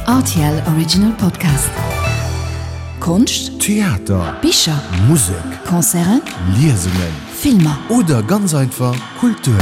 Rtl Original Podcast. Konscht, Theater, Bicher, Musek, Concerten, Liesungen Filmer. Oder ganz einfach Kultur.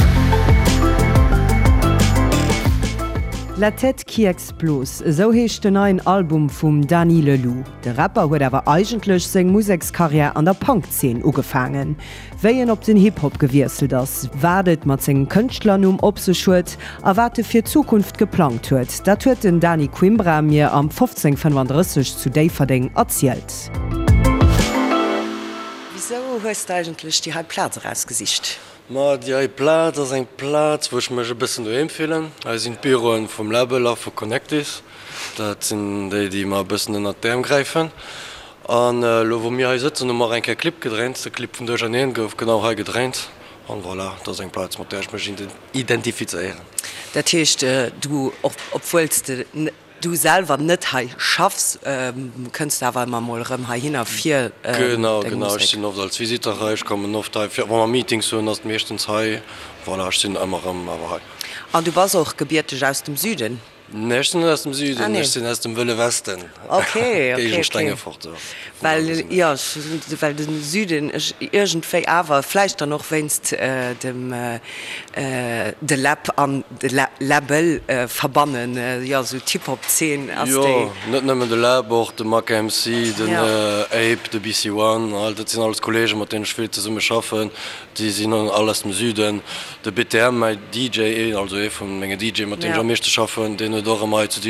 La tête qui explose, esou heescht den neien Album vum Dany Leloup. De Rapper huet awer eigentlech seng Musekskarriär an der Punk-Zeen ugefaangen. Wéi en op den Hip-Hop gewiesselt ass, wat et mat sengem Kënschtlernumm op sech huet a wat e fir d'Zukunft geplangt huet, dat huet den Dany Quimbra mir am 1535 zu Déifferdeng erzielt. Wisou hues de eigentlech déi hei Plaz erausgesicht? Ma déi hei Plaz ass eng Plaz, wou ech mech e bëssen doheem fillen. Hei sinn d'Büroen vum Label a vu Connectis. Dat sinn déi, déi mer e bëssen ënnert d'Äerm gräifen. An elo wou mir hei sëtzen, hu mer och eng Kéier Clip gedréint. De Clip vun Duercherneen gouf genau hei gedréint. An voilà, dat ass eng Plaz, mat där ech mech identifizéieren. Dat heescht, du, obwuel s de du selwer net hei schaffs, kënns de awer ëmmer mol erëm heihinner fir deng Musek? Genau, genau. Ech sinn oft als Visiteur hei. Ech kommen oft hei fir, wa mer Meetings hunn, ass et meeschtens hei. Voilà, ech sinn ëmmer erëm awer hei. An du bass och gebierteg aus dem Süden? Nee, ech sinn net aus dem Süden, ech sinn aus dem Wëlle Westen, Géigend Stengefort. Well, jo, well de Süden ech iergendwéi awer, vläicht dann och wéinst dem de Läb an de Läbbel verbannen, jo, esou d'Hip-Hop-Zeen ass déi. Jo, net nëmmen de Läb, och de Mac MC, den Ape, de BC One, all dat sinn alles Kolleegen, mat deenen ech vill zesumme schaffen. Déi sinn all aus dem Süden. De BTM, mäi DJ, also ee vu menge DJe mat deem ech am meeschte schaffen, deen huet och ëmmer hei zu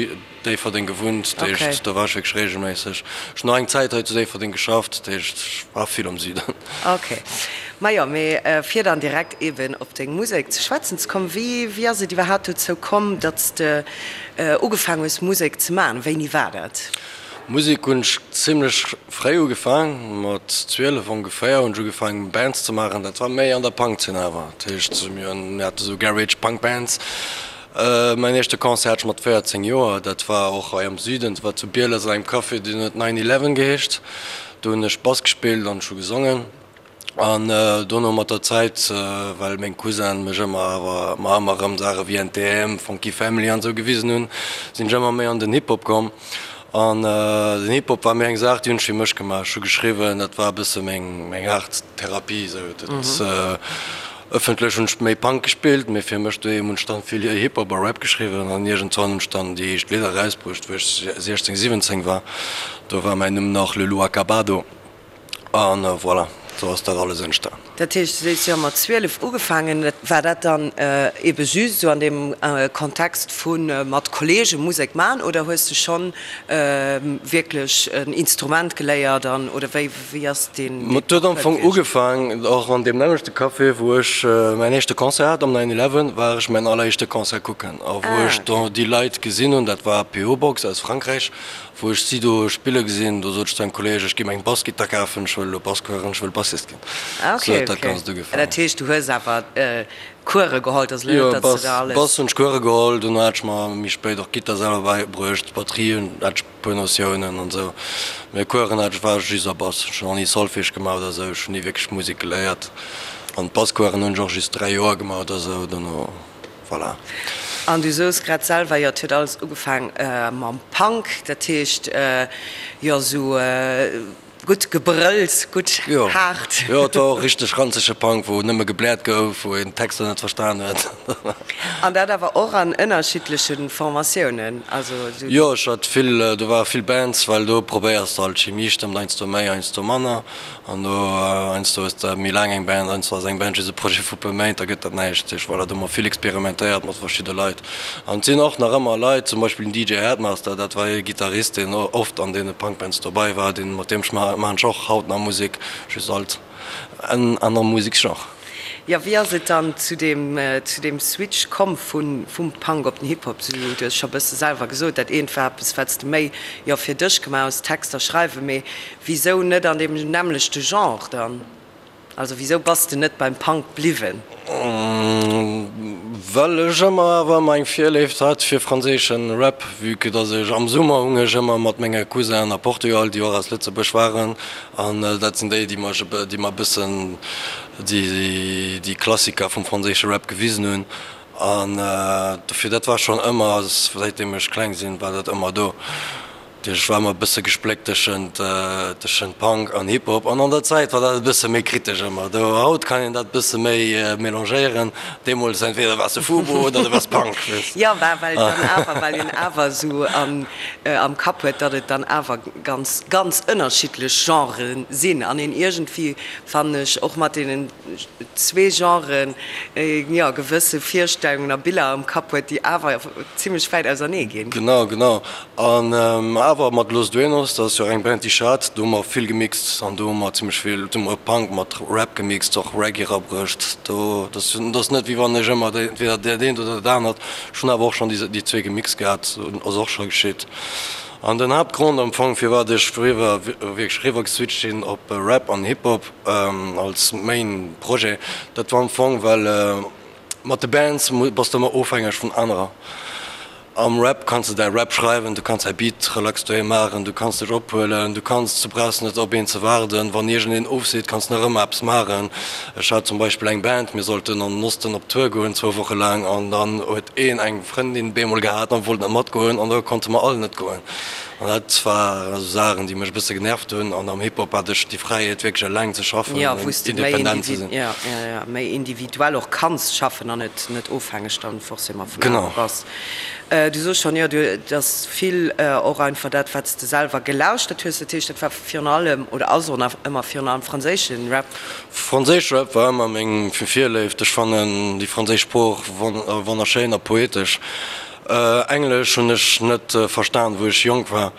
Déifferdeng gewunnt. Dat heescht, do war ech wierklech reegelméisseg. Ech hunn och eng Zäit hei zu Déifferdeng geschafft, dat heescht, ech war vill am Süden. Ok. Majo, mee fir dann direkt eeben op deng Musek ze schwätzen ze kommen, wéi, wéi ass et iwwerhaapt dozou komm, datt s de ugefaang hues Musek ze maachen? Wéini war dat? Musek hunn ech zimlech fréi ugefaang, mat 12 ongeféier hunn ech ugefaang Bands ze maachen. Dat war méi an der Punkzeen awer, dat heescht mir hate sou Garage Punk Bands. Mäin éischte Concert hat ech mat 14 Joer, dat war och hei am Süden, dat war zu Bieles an engem Café, deen huet Nine Eleven geheescht. Do hunn ech Bass gespillt an ech hu gesongen. An dono mat der Zäit, well meng Cousinen mech ëmmer awer mer ëmmer erëm Saache wéi NTM, Funky Family an esou gewisen hunn, sinn ech ëmmer méi an den Hip-Hop komm. An den Hip-Hop war méi eng Saach, déi hunn ech fir mech gemaach. Ech hu geschriwwen, dat war e bësse meng meng Aart Therapie esou. Dat ëffentlech hunn ech méi Punk gespillt, mee fir mech doheem hunn ech dann vill Hip-Hop a Rap geschriwwen. An iergendwann hunn ech dann déi éischt Lidder erausbruecht, wou ech 16, 17 war. Do war mäin Numm nach Le Loup Acabado. An voilà, sou ass dat alles entstan. Dat heescht, du sees, jo, mat 12 ugefaangen. War dat dann ebe just esou an deem Kontext vu mat Kollege Musek man oder hues de schonn wierklech en Instrument geléiert an oder wéi wéi ass deen Et huet am Fong ugefaang och an deem nämmlechte Café, wou ech mäin éischte Concert hat, am Nine Eleven war ech mäin alleréischte Concert kucken a wou ech do déi Leit gesinn hunn, dat war PO Box aus Frankräich, Wou ech si do spille gesinn, do sot ech zu engem Kolleeg, ech gi mer eng Bassgittar kafen, ech wëll elo Bass kueren, ech wëll Bassist ginn. Ah ok, Sou huet dat ok. Ganzt ugefaangen. Dat heescht, du hues awer Kuere geholl, et ass elo Jo, net, datt s de Bass, der alles. Bass hunn ech Kuere geholl, dono hat ech mer méi spéit och d'Gittar selwer bäibruecht, d'Batterie hunn, hat ech e puer Notiounen an esou. Mee Kueren hat ech, war ech just a Bass. Ech hunn och ni Solfège gemaach oder esou, ech hunn ni wierklech Musek geléiert. An d'Basskueren hunn ech och just 3 Joer gemaach oder esou, dono. Voilà. An du soos grad selwer, jo, et huet alles ugefaang mam Punk, dat heescht, jo, esou gutt gebrëllt, gutt haart. Jo, et war och richteg ranzege Punk, wou nëmme gebläert gouf, wou een d'Texter net verstan huet. An dat awer och an ënnerschiddleche Formatiounen, also esou. Jo, ech hat vill, do ware vill Bands, well do probéiers de alt, d'Chimie stëmmt heiansdo méi, heiansdo manner. An do heiansdo hues de méi laang eng Band, heiansdo ass eng Band just e Projet vu puer Méint, da gëtt dat näischt. Dat heescht, voilà, do hu mer vill experimentéiert mat verschidde Leit. An et sinn och nach ëmmer Leit, zum Beispill den DJ Headmaster, dat war ee Gittarist, deen oft an deene Punkbands dobei war, deen, mat deem maachen ech och haut nach Musek, just alt en anere Museksgenre. Jo, wéi ass et dann zu deem, zu deem Switch komm vu vum Punk op den Hip-Hop? Du hues scho bësse selwer gesot, dat eent war eppes, wat s de méi, jo, fir dech gemaach hues, Texter schreiwen, mee Wisou net an deem nämmlechte Genre dann? Also wisou bass de net beim Punk bliwwen? Well ech ëmmer awer ëmmer eng Virléift hat fir franséischen Rap, vue que dass ech am Summer hung ech ëmmer mat menge Cousinen a Portugal, déi och aus Lëtzebuerg waren, an dat sinn déi, déi mech déi mer e bëssen déi déi Klassiker vum franséische Rap gewisen hunn. An dofir, dat war schonn ëmmer, säitdeem ech kleng sinn, war dat ëmmer do. Ech war ëmmer e bësse gespléckt tëschent tëschent Punk an Hip Hop an an der Zäit war dat e bësse méi kritesch ëmmer. Do haut kann een dat bësse méi mélangéieren, deemools entweder waars de Fubo oder du waars Punk, weess. Jo, war well dann awer, well een awer esou an am Kapp huet, datt et dann awer ganz ganz ënnerschiddlech Genrë sinn an een iergendwéi, fannen ech, och mat deenen zwee Genren, jo, gewësse Virstellungen a Biller am Kapp huet, déi awer zimlech wäit ausernee ginn. Genau, genau. An awer mat Los Duenos, dat ass jo och eng Band déi ech hat, do hu mer vill gemixt an do hu mer zimmlech vill, do hu mer Punk mat Rap gemixt, och Reggae erabruecht. Do, dat ass net wéi wann ech ëmmer entweder dat eent oder dat anert, ech hunn awer och schonn déi déi zwee gemixt gehat, ass och scho geschitt. An den Haaptgrond am Fong firwat ech riwwer, wierklech riwwer geswitcht sinn op Rap an Hip Hop als Main Projet, dat war am Fong well mat de Bands bass de ëmmer ofhängeg vun anerer. Am Rap kanns de däi Rap schreiwen, du kanns däi Beat relax doheem maachen, du kanns dech ophuelen, du kanns, du brauchs net op een ze waarden. Wann iergendeen ofseet, kanns nach ëmmer eppes maachen. Ech hat zum Beispill eng Band, mir sollten an den Osten op Tour goen, zwou Woche laang, an dann huet een eng Frëndin bemol gehat an wollt net matgoen an da konnte mer all net goen. An dat war esou Saachen, déi mech e bësse genervt hunn. An am Hip-Hop hat ech déi Fräiheet, wierklech eleng ze schaffen an independent ze sinn. Jo, méi individuell och kanns schaffen an net ofhängeg dann forcément vun anere bass. Du soos schonn, jo, du, et ass vill och einfach dat, wat s de selwer gelauschtert hues. Dat heescht, dat war virun allem oder ass och nach ëmmer virun allem franséische Rap? Franséische Rap war ëmmer meng Virléift. Ech fannen déi franséisch Sprooch wonnerschéin a poetesch. Englesch hunn ech net verstan, wou ech jonk war.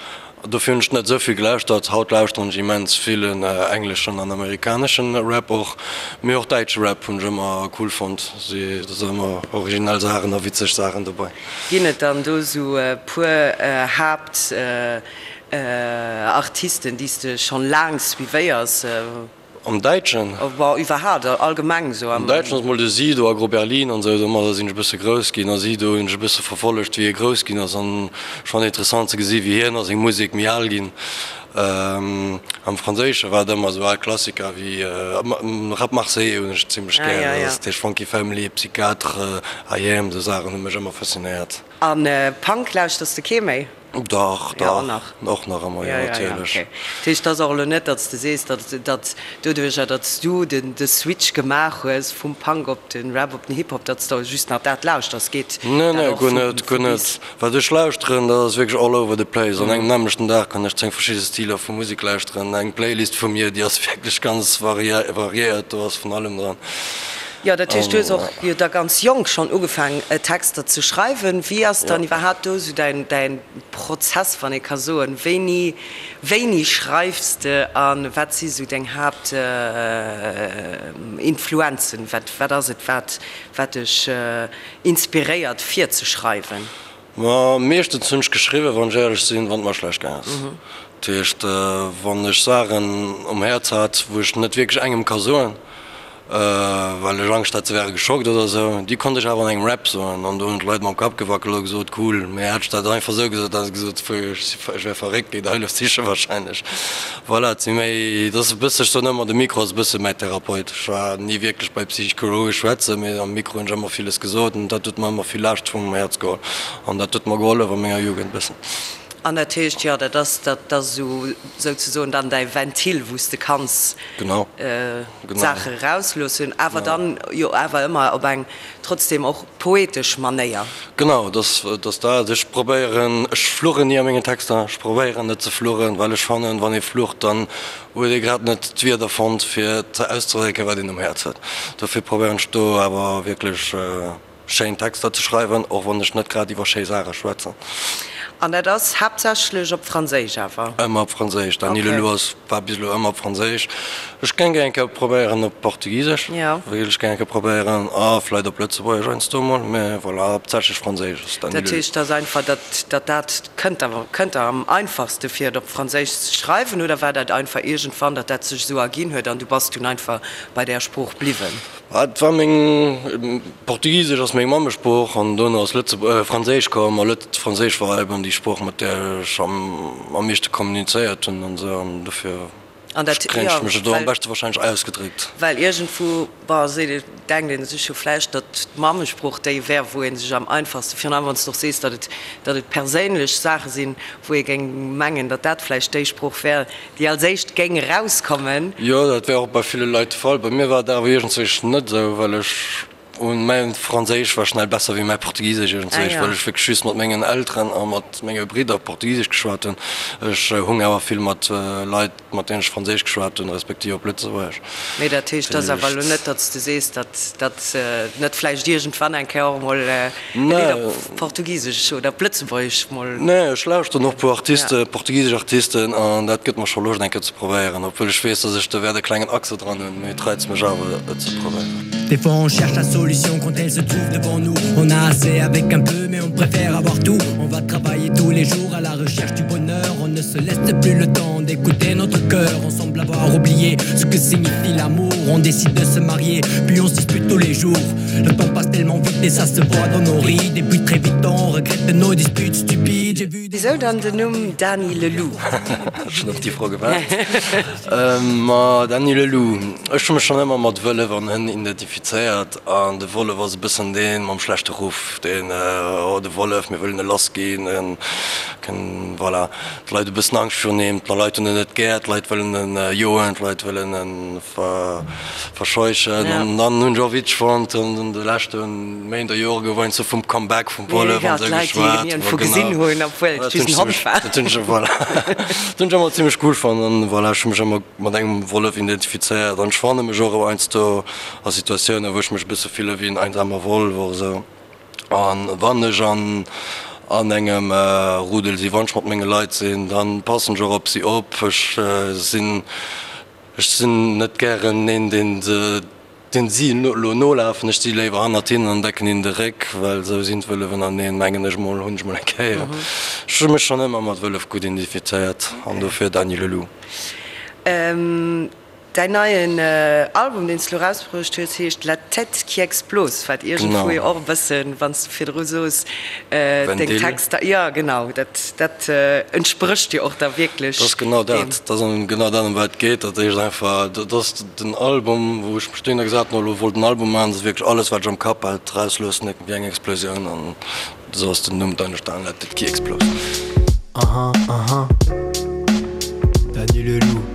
Dofir hunn ech net esou vill gelauschtert. Haut lauschteren ech immens vill engleschen an amerikaneschen Rap och. Mee och däitsche Rap hunn ech ëmmer cool fonnt. Do sinn ëmmer originell Saachen a witzeg Saachen dobei. Ginn et dann do esou e puer Haapt Artisten déi s de schonn laang suivéiers? Am Däitschen? Bon, iwwerhaapt, allgemeng esou am. Am Däitschen ass mol de Sido, Aggro Berlin an esou, domadder sinn ech e bësse grouss ginn. A Sido hunn ech e bësse verfollegt, wéi hie grouss ginn ass an ech fannen interessant ze gesi wéi hien a seng Musek méi al ginn. Am Franséische war et ëmmer esou al Klassiker wéi Rap Marseillais hunn ech zimmlech gär, dat heescht Funky Family, Psychiatre, IAM, esou Saachen hu mech ëmmer faszinéiert. A Punk lauschters de kee méi? Dach, dach, och nach ëmmer, jo, natierlech. Dat heescht, et ass och elo net, datt s de sees, datt, datt doduercher, datt s du den, de Switch gemaach hues vum Punk op de Rap, op den Hip-Hop, datt s de just nach dat lauschters. Geet Nee, nee, guer net, guer net. Wat ech lauschteren, dat ass wierklech all over the place. An engem nämmlechten Dag kann ech 10 verschidde Stiler vu Musek lauschteren. Eng Playlist vu mir, déi ass wierklech ganz variéiert, do ass vun allem dran. Jo, dat heescht, du hues och jo da ganz jonk schonn ugefaang Texter ze schreiwen. Wéi ass dann iwwerhaapt do esou däin däin Prozess, wann ee ka soen? Wéini wéini schreifs de a wat si sou deng Haapt Influenzen? Wat wat ass et wat wat dech inspiréiert fir ze schreiwen? Ma meeschtens hunn ech geschriwwen, wann ech éierlech sinn, wann et mer schlecht gaang ass. Dat heescht, wann ech Saachen um Häerz hat, wou ech net wierklech engem ka soen, well ech Angscht hat, se wäre geschockt oder esou, déi konnt ech awer an engem Rap soen. An do hunn d'Leit mam Kapp gewackelt a gesot, cool. Mee hätt ech dat einfach esou gesot, hätte se gesot, ech wär verréckt, géi der Hëllef siche wahrscheinlech. Voilà, et si méi, et ass e bësse, ech soen ëmmer, de Mikro ass e bësse mäi Therapeut. Ech war ni wierklech bei Psychologe schwätzen, mee am Mikro hunn ech ëmmer villes gesot an dat huet mer ëmmer vill Laascht vum Häerz geholl an dat huet mer gehollef a menger Jugend e bëssen. An dat heescht, jo, dat ass, dat ass esou souzesoen dann däi Ventil, wou s de kanns d'Saache erausloossen, awer dann jo awer ëmmer op eng trotzdem och poetesch Manéier. Genau, dat ass dat. Ech probéieren, ech fluchen ni a mengen Texter, ech probéieren net ze fluchen, well ech fannen, wann ee flucht, dann huet ee grad net d'Wierder fonnt, fir auszedrécken, wat een um Häerz huet. Dofir probéieren ech do awer wierklech schéin Texter ze schreiwen, och wann ech net grad iwwer schéi Saache schwätzen. An dat ass haaptsächlech op Franséisch awer? Ëmmer op Franséisch. Dany Leloup ass, war bis elo ëmmer op Franséisch. Ech géing eng Kéier probéieren op Portugisesch, wéilt ech gär eng Kéier probéieren, a vläit op Lëtzebuergesch heiansdo emol, mä voilà, haaptsächlech Franséisch ass Dat heescht, et ass einfach, datt datt dat kënnt der, kënnt der am einfachste fir et op Franséisch ze schreiwen, oder war dat einfach iergendwann, datt dat sech esou erginn huet an du bass dunn einfach bei där Sprooch bliwwen? Et war meng, Portugisesch ass meng Mammesprooch an dono ass Lëtze, Franséisch komm a Lëtz, Franséisch war eben déi Sprooch, mat där ech am am meeschte kommunizéiert hunn an esou an dofir. An dat, Kréien jo, ech mech elo am well, beschte wahrscheinlech ausgedréckt. well iergendwou, bon, seet ee, denkt ee sech jo vläicht, datt d'Mammesprooch déi wär, wou ee sech am einfachste, virun allem wann s de och sees, datt et, datt et perséinlech Saache sinn, wou ee géing mengen, datt dat vläicht déi Sprooch wär, déi als éischt géing erauskommen. Jo, dat wär och bei ville Leit de Fall. Bei mir war et awer iergendzwéi net esou, well ech un mäin Franséisch war schnell besser wéi mäi Portugisesch iergendzwéi, well ech wierklech just mat mengen Elteren a mat menge Bridder Portugisesch geschwat hunn. Ech hung awer vill mat Leit, mat deenen ech Franséisch geschwat hunn, respektiv op Lëtzebuergesch. Mee dat heescht, et ass awer elo net, datt s de sees, datt datt net vläicht iergendwann eng Kéier och emol e Lidd op Portugisesch oder op Lëtzebuergesch mol. Nee, ech lauschteren och e puer Artisten, portugisesch Artisten, an dat gëtt mer scho Loscht eng Kéier ze probéieren, obwuel ech weess, datt ech do wäert e klengen Accent dran hunn, mee et reizt mech awer et ze probéieren. Des fois on cherche la solution quand elle se trouve devant nous On a assez avec un peu mais on préfère avoir tout On va travailler tous les jours à la recherche du bonheur On ne se laisse plus le temps d'écouter notre cœur On semble avoir oublié ce que signifie l'amour On décide de se marier puis on se dispute tous les jours Le temps passe tellement vite et ça se voit dans nos rides Et puis très vite on regrette nos disputes stupides J'ai vu des Wisou dann den Numm Dany Le Loup? Ech hunn op déi Fro gewaart. Ma Dany Le Loup, ech hu mech schonn ëmmer mat Wëllef an Hënn identifizéiert an de Wollef ass e bëssen dee mam schlechte Ruff, deen, oh de Wollef, mir wëllen e lass ginn, en kënn, voilà, d'Leit hu bëssen Angscht virun him, d'Leit hunn en net gär, d'Leit wëllen en joen, d'Leit wëllen en verscheuchen. An dann hunn ech och witzeg fonnt, an de leschte Méint a Jore gouf heiansdo vum Comeback vum Wollef an esou geschwat. Dat hunn ech, voilà, dat hunn ech ëmmer zimmlech cool fonnt an voilà, ech hu mech ëmmer mat engem Wollef identifizéiert an ech fanne mech och heiansdo a Situatiounen, wou ech mech e bësse fille wéi en einsamer Wollef och esou. An wann ech an an engem Rudel sinn, wann ech mat menge Leit sinn, dann passen ech och op si op. Ech sinn ech sinn net gären een, deen se deen si elo nolafen. Ech si léiwer hannert hinnen an decken hinnen de Réck, well esou sinn d'Wëllef ënnerteneen, mengen ech mol, hunn ech mol eng Kéier. Ech hu mech schonn ëmmer mat Wëllef gutt identifizéiert an dofir Dany le Loup. Däin neien Album, deen s de elo erausbruecht hues, heescht La tête qui explose, wat iergendwou jo och e bëssen, wann s de virdru sos, deng Texter, jo genau, dat dat entsprécht jo och da wierklech Dat ass genau deem. dat, dat ass genau dat, ëm wat et geet. Dat heescht einfach, dat ass den Album, wou ech mech dohinner gesat hunn, elo wollt en Album maachen, dat ass wierklech alles, wat ech am Kapp hat, erausloossen, wéi eng Explosioun an Esou ass den Numm dann entstanen, La tête qui explose. Aha, aha, Dany le loup.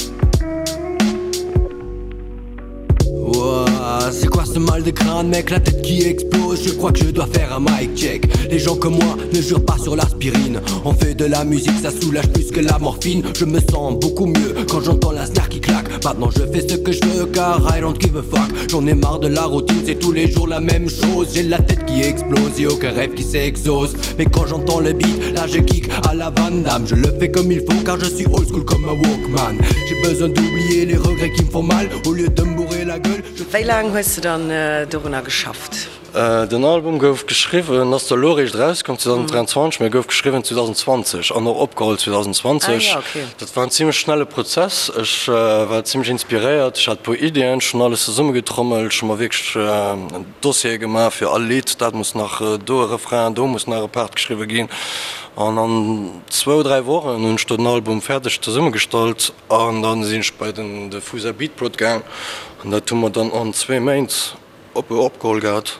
Ouah, c'est quoi ce mal de crâne, mec, la tête qui explose, je crois que je dois faire un mic check. Les gens comme moi ne jurent pas sur l'aspirine. On fait de la musique, ça soulage plus que la morphine. Je me sens beaucoup mieux quand j'entends la snare qui claque. Maintenant je fais ce que je veux car I don't give a fuck. J'en ai marre de la routine, c'est tous les jours la même chose. J'ai la tête qui explose et aucun rêve qui s'exauce. Mais quand j'entends le beat, là je kick à la Van Damme. Je le fais comme il faut car je suis old school comme un Walkman. J'ai besoin d'oublier les regrets qui me font mal au lieu de me bourrer la gueule. Je... Wéi laang hues de dann dorunner geschafft? Den Album gouf geschriwwen, ass zwar elo eréischt erauskomm 2023, mee gouf geschriwwen 2020 an och opgeholl 2020. Dat war en zimmlech schnelle Prozess. Ech war zimmlech inspiréiert, ech hat e puer Iddien, ech hunn alles zesummegetrommelt, ech hu mer wierklech en Dossier gemaach fir all Lidd, dat muss nach do e Refrain, do muss nach e Part geschriwwe ginn. An an zwou, dräi Wochen hunn ech do den Album fäerdeg zesummegestallt an da sinn ech bei den de Fusa Beatprod gaang an dat hu mer dann an zwee Méint Op opgeholl gehat.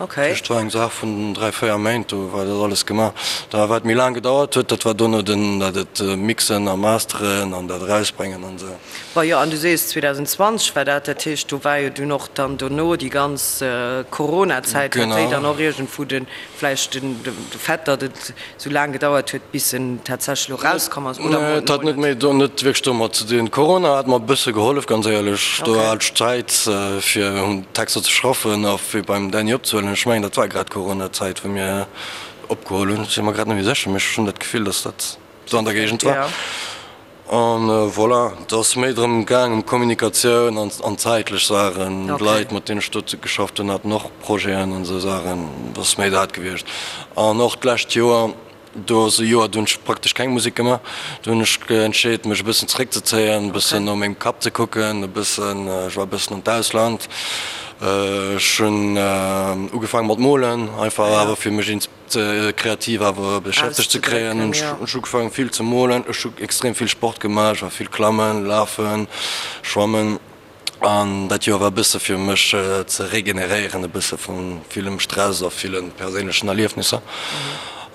Okay. Dat war eng Saach vun 3, 4 Méint, do war dat alles gemaach. Da wat méi laang gedauert huet, dat war dono den dat et mixen a masteren an dat erausbréngen an esou. Bon jo, an du sees 2020 war dat, dat heescht do war jo dunn och dann dono déi ganz Corona-Zäit, hat déi dann och iergendwou de vläicht den de Fait, datt et sou laang gedauert huet bis en tatsächlech elo rauskomm ass, oder Nee, et hat net méi do net wierklech domat ze dinn. Corona hat mer e bësse gehollef, ganz éierlech. Do hat ech Zäit fir un Texter ze schaffen a fir beim Dany opzehuelen. Ech mengen dat war grad Corona-Zäit wou mir opgeholl hunn. Ech si mer grad net méi sécher, mee ech hunn dat Gefill, datt dat do an der Géigend war. An voilà, et ass méi drëm gaang ëm Kommunikatioun an an zäitlech Saachen. D'Leit, mat deenen ech do geschafft hunn, haten och Projeten an esou Saachen. Et ass méi dat gewiescht. An och d'lescht Joer, do ass e Joer, do hunn ech praktesch keng Musek gemaach. Do hunn ech entscheet, mech e bëssen zeréckzezéien, e bëssen no mengem Kapp ze kucken, e bëssen, ech war e bëssen an d'Ausland. Ech hunn ugefaange mat molen, einfach awer fir mech kreativ awer beschäftegt ze kréien. Hunn ech ugefaangen vill ze molen. Ech hu extrem vill Sport gemaach, ech war vill klammen, lafen, schwammen. An dat Joer war e bësse fir mech ze regeneréieren, e bësse vu villem Stress a ville perséinlechen Erliefnisser.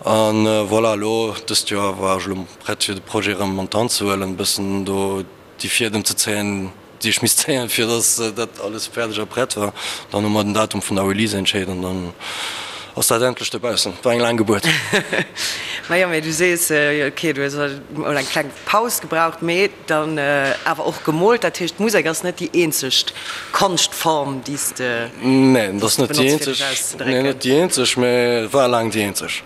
An voilà, elo dëst Joer war ech elo prett fir de Projet erëm an d'Hand ze huelen, e bëssen do déi Fiedem ze zéien, déi ech misst zéien, fir datt dat alles fäerdeg a prett war. Dann hu mer den Datum vun der Release entscheet an dann ass dat endlech dobaussen. War eng laang Gebuert. Majo, mee du sees, ok, du hues mol eng kleng Paus gebraucht, mee dann awer och gemoolt. Dat heescht, d'Musek ass net déi eenzegt Konschtform, déi s de Nee, dat ass net déi eenzeg, nee, net déi eenzeg, mee war laang déi eenzeg.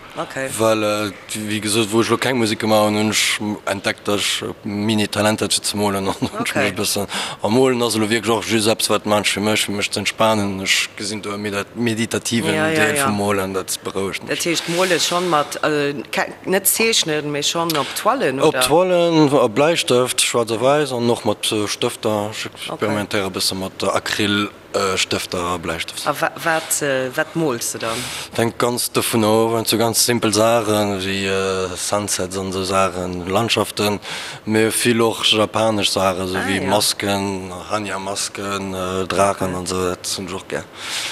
Well wéi gesot, wou ech elo keng Musek gemaach hunn, hunn ech entdeckt, datt ech Mini-Talent hat fir ze molen an hunn ech mech e bëssen. A molen ass elo wierklech och just eppes, wat maachen ech fir mech, fir mech ze entspanen. Ech gesinn do e meditativen Deel vum Molen, dat berouegt mech. Dat heescht mole schonn mat, net zeechnen, mee schonn op Toilen, oder? Op Toilen, a Bläistëft, schwaarz a wäiss, an och mat Stëfter. Ech experimentéiere e bësse mat Acryl. Stëfter a Bläistëft. A wat wat mools de dann? Hänkt ganz dovun of, et sou ganz simpel Saachen wéi Sunsets an esou Saachen, Landschaften, mee vill och japanesch Saachen, sou wéi Masken, Hannya-Masken, Draachen an esou, dat hunn ech och gär.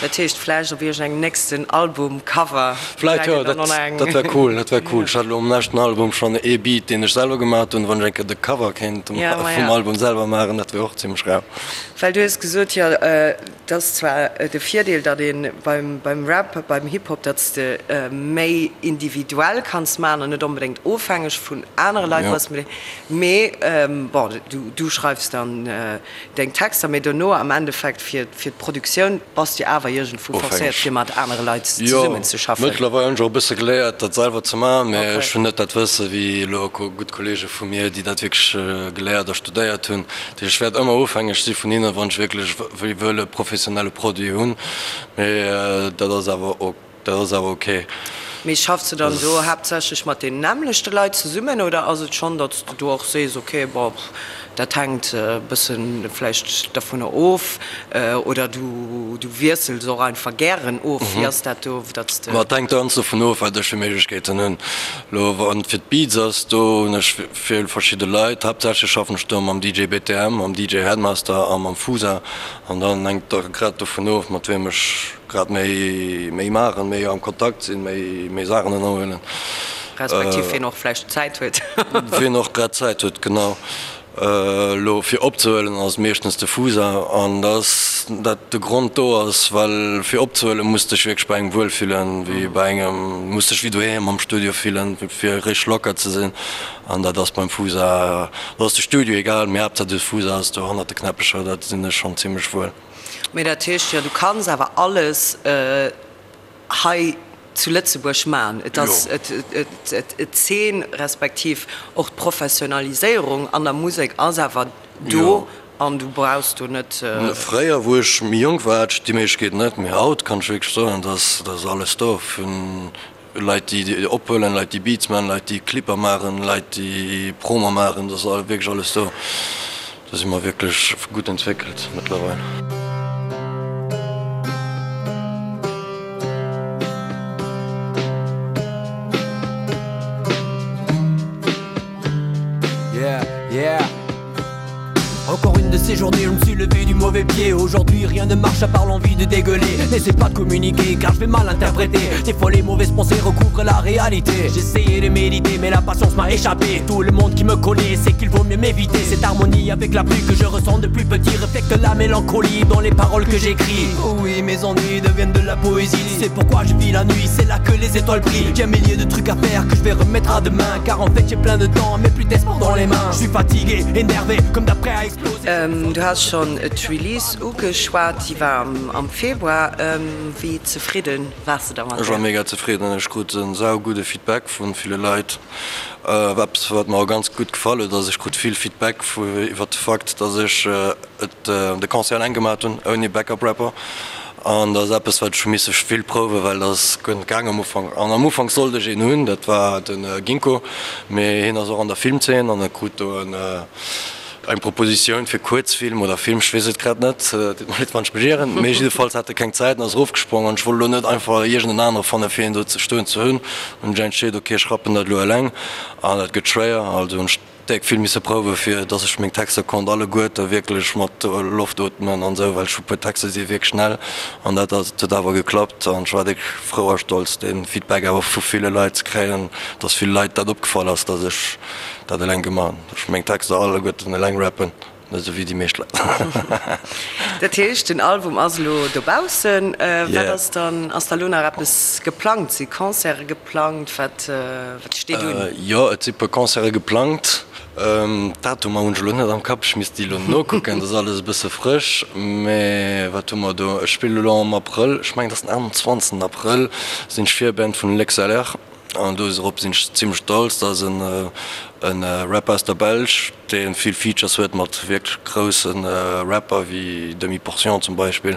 Dat heescht vläicht op iergend engem nächsten Album-Cover Vläicht jo, dat dat wär cool, dat wär cool. Ech hat elo um leschten Album schonn ee Beat, deen ech selwer gemaat hunn, wann ech eng Kéier de Cover kéint vum Album selwer maachen, dat wär och zimmlech rau. Well du hues gesot, jo, et ass zwar de Virdeel, datt ee beim Rap, beim Hip-Hop, datt s de méi individuell kanns maachen an net onbedéngt ofhängeg vun anere Leit bass, mee bon, du schreifs dann deng Texter, mee dono am Endeffekt fir d'Produktioun bass de awer iergendwou forcéiert, fir mat anere Leit zesummen ze schaffen. Jo, mëttlerweil hunn ech och e bësse geléiert, dat selwer ze maachen, mee ech hunn net dat Wësse wéi elo gutt Kolleege vu mir, déi dat wierklech geléiert a studéiert hunn. Ech wäert ëmmer ofhängeg si vun hinnen, wann ech wierklech wëll e professionelle Produit hunn, mee dat ass awer dat ass awer ok. Mee schaffs de dann do haaptsächlech mat den nämmlechte Leit zesummen oder ass et schonn, datt s de do och sees, ok, bon, dat hänkt e bësse vläicht dovunner of oder du du wiessels och einfach gären of? Wéi ass dat do, datt s de. Ma et hänkt ganz dovun of, wat ech fir Méiglechkeeten hunn. Elo wann et fir d'Beats ass, do hunn ech Vill verschidde Leit, haaptsächlech schaffen ech do mam DJ BTM, mam DJ Headmaster a mam Fusa. An dann hänkt et grad dovun of, mat wiem ech grad méi méi maachen, méi am Kontakt sinn, méi méi Saachen ënnerhuelen. Respektiv wien och vläicht Zäit huet. Wien och grad Zäit huet, genau. Elo fir opzehuelen ass et meeschtens de Fusa. An dass dat de Grond do ass, well fir opzehuelen muss dech wierklech bei engem wuel fillen, wéi bei engem, muss dech wéi doheem am Studio fillen, fir richteg locker ze sinn. An dat ass beim Fusa, do ass de Studio egal, mee Haaptsaach de Fusa ass do hannert de Knäppecher, dat sinn ech schonn zimmlech wuel. Mee dat heescht jo, du kanns awer alles hei zu Lëtzebuerg man. Et ass d'Zeen, respektiv och d'Professionaliséierung an der Musek ass awer do an du brauchs do net. Fréier, wou ech méi jonk war, hat ech déi Méiglechkeet net, mee haut kann ech wierklech soen, dass ass alles do, vun Leit déi ophuelen, Leit déi Beats man, Leit déi Clipper maachen, Leit déi Promo maachen, dat ass wierklech alles do. Do si mer wierklech gutt entwéckelt mëttlerweil. Yeah, yeah. Encore une de ces journées, je me suis levé du mauvais pied. Aujourd'hui, rien ne marche à part l'envie de dégueuler. N'essaie pas de communiquer car je vais mal interpréter. Des fois, les mauvaises pensées recouvrent la réalité. J'essayais de méditer, mais la patience m'a échappé. Tout le monde qui me connaît sait qu'il vaut mieux m'éviter. Cette harmonie avec la pluie que je ressens depuis petit reflète la mélancolie dans les paroles que j'écris. Oh oui, mes ennuis deviennent de la poésie. C'est pourquoi je vis la nuit, c'est là que les étoiles brillent. J'ai un millier de trucs à faire que je vais remettre à demain. Car en fait, j'ai plein de temps, mais plus d'espoir dans les mains. Je suis fatigué, énervé, comme d'après à Du has schonn d'Release ugeschwat, déi war am Februar. Wéi zefridde waars de da mat Ech war mega zefridden. Ech krut e saugudde Feedback vu ville Leit. Eppes wat mer och ganz gutt gefall huet ass, ech krut vill Feedback iwwer de Fakt, datt ech et de Concert eleng gemaat hunn, ouni Backup Rapper. An dat ass eppes wat ech hu misse vill prouwen, well dat ass guer net gaang am Ufank. An am Ufank sollt ech een hunn, dat war de Ginkgo, mee hien ass och an der Filmzeen an e krut do en. Eng Propositioun fir Kuerzfilm oder Film, ech weess et grad net, deet mer leed wann ech mech ieren, mee jiddefalls hat e keng Zäit an ass erofgesprong an ech wollt elo net einfach iergend en anere fanne fir een do ze stoen ze hunn. Hunn ech entscheet, ok ech rappen dat elo eleng an dat gëtt schwéier, also hunn ech déck vill misse prouwe fir dass ech meng Texter konnt alleguerte wierklech mat Loft ootmen an esou, well ech hu puer Texter si wierklech schnell an dat ass huet awer geklappt an ech war déck frou a stolz dee Feedback awer vu ville Leit ze kréien, dass vill Leit dat opgefall ass, dass ech dat eleng gemaach hunn. Ech meng Texter alleguerten eleng rappen, net esou wéi déi meescht Leit. Dat heescht, den Album ass elo dobaussen. Wat ass dann, ass da elo nach eppes geplangt? Si Concerte geplangt? Wat steet un? Jo, et si puer Concerte geplangt. D'Datumer hunn ech elo net am Kapp, ech misst déi elo nokucken, dat ass alles e bësse frësch. Mee wat hu mer do? Ech spillen elo am Abrëll, ech mengen et ass den 28 Abrëll, sinn ech Virband vun L'XLR. An dorop sinn ech zimmlech stolz. Dat ass e Rapper aus der Belsch, dee vill Features huet mat wierklech grousse Rapper wéi Demi Portion zum Beispill.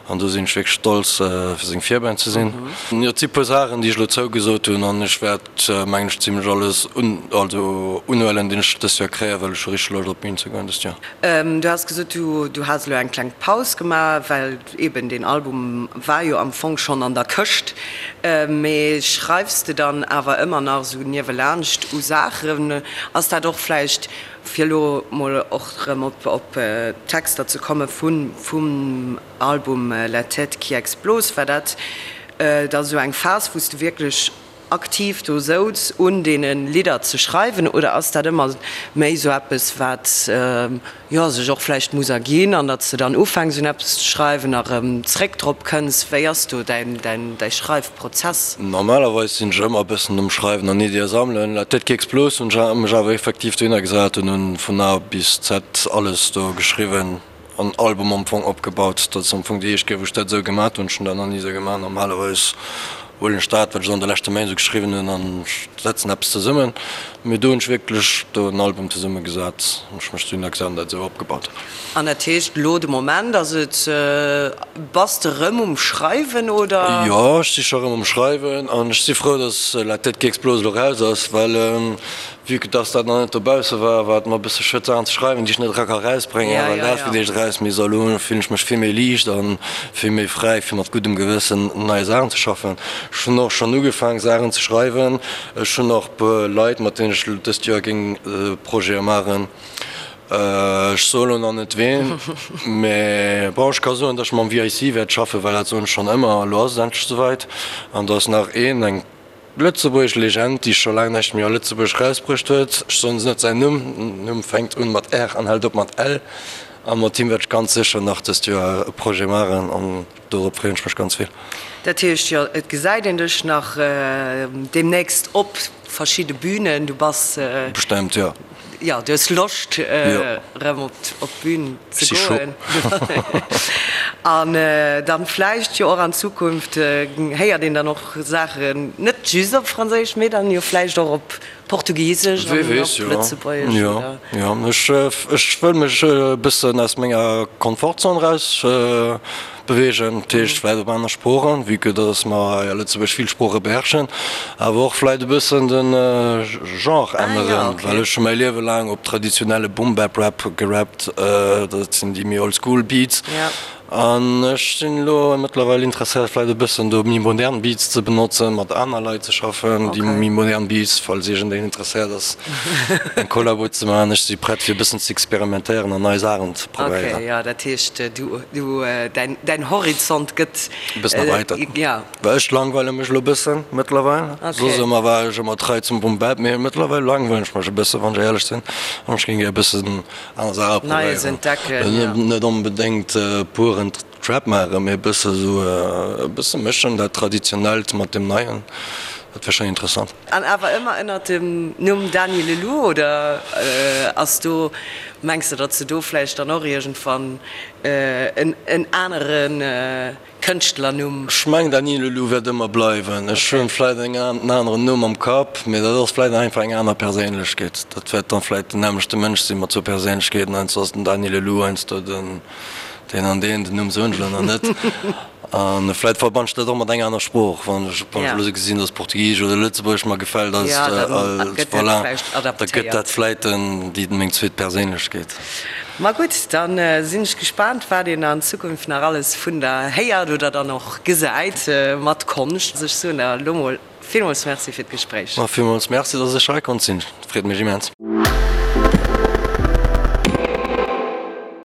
An do sinn ech wierklech stolz, fir seng Virband ze sinn. Jo, et si puer Saachen, déi ech elo zougesot hunn an ech wäert, mengen ech, zimmlech alles un, also unhuelen, deen ech dëst Joer kréien, well ech hu richteg Loscht op d'Bün ze goen dëst Joer. Du has gesot, du has elo eng kleng Paus gemaach, well Eben, deen Album war jo am Fong schonn an der Këscht. Mee schreifs de dann awer ëmmer nach esou niewelaanscht u Saachen? Ass dat och vläicht, fir elo mol och erëm op d'Texter ze komme vum Album La tête qui explose, war dat da esou eng Phas, wou s de wierklech aktiv do souz un deene Lidder ze schreiwen oder ass dat ëmmer méi sou eppes wat jo sech och vläicht muss erginn an datt s de dann ufänks un eppes ze schreiwen a rëm zréck drop kënns? Wéi ass do däin däi Schreifprozess? Normalerweis sinn ech ëmmer e bëssen um Schreiwen an Iddie sammelen. La tête qui explose hunn ech mech awer effektiv dohinner gesat an hunn vun A bis Z alles do geschriwwen. An Album am Fong opgebaut. Dat ass am Fong déi éischt Kéier wou ech dat esou gemat hunn. Ech hunn dat nach ni esou gemaach. Normalerweis huelen ech dat wat ech an de leschte Méint esou geschriwwen hunn an setzen eppes zesummen. Mee do hunn ech wierklech do en Album zesumme gesat an ech mech dohinner gesat an dat esou opgebaut. An dat heescht elo de Moment ass et, bass de rëm um Schreiwen oder? Jo, ech si scho rëm um Schreiwen an ech si frou, datt La tête qui explose elo raus ass, well Vue que dass dat nach net dobausse war, war et mer e bësse schued Saachen ze schreiwen, déi ech net era ka rausbréngen, well dat fir d'éischt eraus misst. A lo fillen ech mech vill méi liicht a vill méi fräi fir mat guddem Gewëssen un neie Saachen ze schaffen. Ech hunn och schonn ugefaang Saachen ze schreiwen. Ech hunn och e puer Leit, mat deenen ech dëst Joer géing Projete maachen. Ech soe lo nach net ween, mä bon, ech ka soen, dass ech mam VIC wäert schaffen, well dat soen ech schonn ëmmer. Elo ass et endlech esouwäit. An do ass nach een, eng. Lëtzebuergesch Legend, déi scho laang näischt méi a Lëtzebuerg erausbruecht huet. Ech soen net säin Numm, den Numm fänkt un mat R an hält op mat L. A mat him wäert ech ganz sécher nach dëst Joer e Projet maachen an dorop freeën ech mech ganz vill. Dat heescht jo, et gesäit een dech nach deemnächst op verschidde Bünen. Du bass. Bestemmt, jo. Jo, du hues Loscht erëm op d'Bün ze goen. An dann vläicht jo och an Zukunft héiert een dann och Saachen net just op Franséisch, mee dann jo vläicht och op Portugisesch an op Lëtzebuergesch. Jo, jo, ech wëll mech e bëssen aus menger Komfortzon eraus Beweegen, dat heescht vläit op aner Sproochen, vue que dass mer hei a Lëtzebuerg vill Sprooche beherrschen, awer och vläit e bëssen de Genre änneren, well ech hu mäi Liewe laang op traditionelle Boom-Bap-Rap gerappt, dat sinn déi méi old-school Beats, an ech sinn elo mëttlerweil interesséiert vläit e bëssen do méi modern Beats ze benotzen, mat aner Leit ze schaffen, déi méi modern Beats, falls iergendeen interesséiert ass eng Kollabo ze maachen. Ech si prett fir e bëssen ze experimentéieren an nei Saachen ze probéieren. Ok, jo, dat heescht du, du, däin, däin Horizont gëtt e bëssen erweitert. Ja. Well ech langweile mech elo e bëssen mëttlerweil. Ok. Soss ëmmer war ech ëmmer trei zum Boom Bap, mee mëttlerweil langweilen ech mech e bëssen, wann ech éierlech sinn. An ech géing gär e bëssen aner Saache Neies probéieren. entdecken, ja. Net onbedéngt puren Trap maachen, mee e bësse sou e bësse mëschen, dat Traditionellt mat dem Neien. Dat wär schonn interessant. An awer ëmmer ënnert dem Numm Dany Leloup, oder ass do, mengs de, datt s de do vläicht dann och iergendwann en anere Kënschtlernumm? Ech mengen Dany Leloup wäert ëmmer bleiwen. Ech hunn vläicht en aneren Numm am Kapp, mee dat ass vläicht einfach eng aner Perséinlechkeet. Dat wäert dann vläicht den nämmlechte Mënsch sinn, mat zwou Perséinlechkeeten, heiansdo ass den Dany Leloup, heiansdo den deen an deen, den Numm soen ech elo nach net. A vläit verbann ech dat och mat enger aner Sprooch, wann ech wann ech elo esou gesinn, dass Portugisesch oder Lëtzebuergesch mer gefält, als voilà, da gëtt dat vläit déi meng zweet Perséinlechkeet. Ma gutt, da sinn ech gespaant, wat een an Zukunft nach alles vun der héiert oder dann och gesäit mat Konscht. Ech soen der elo mol villmools Merci fir d'Gespréich. Ma villmools Merci, dass ech hei konnt sinn, freet mech immens.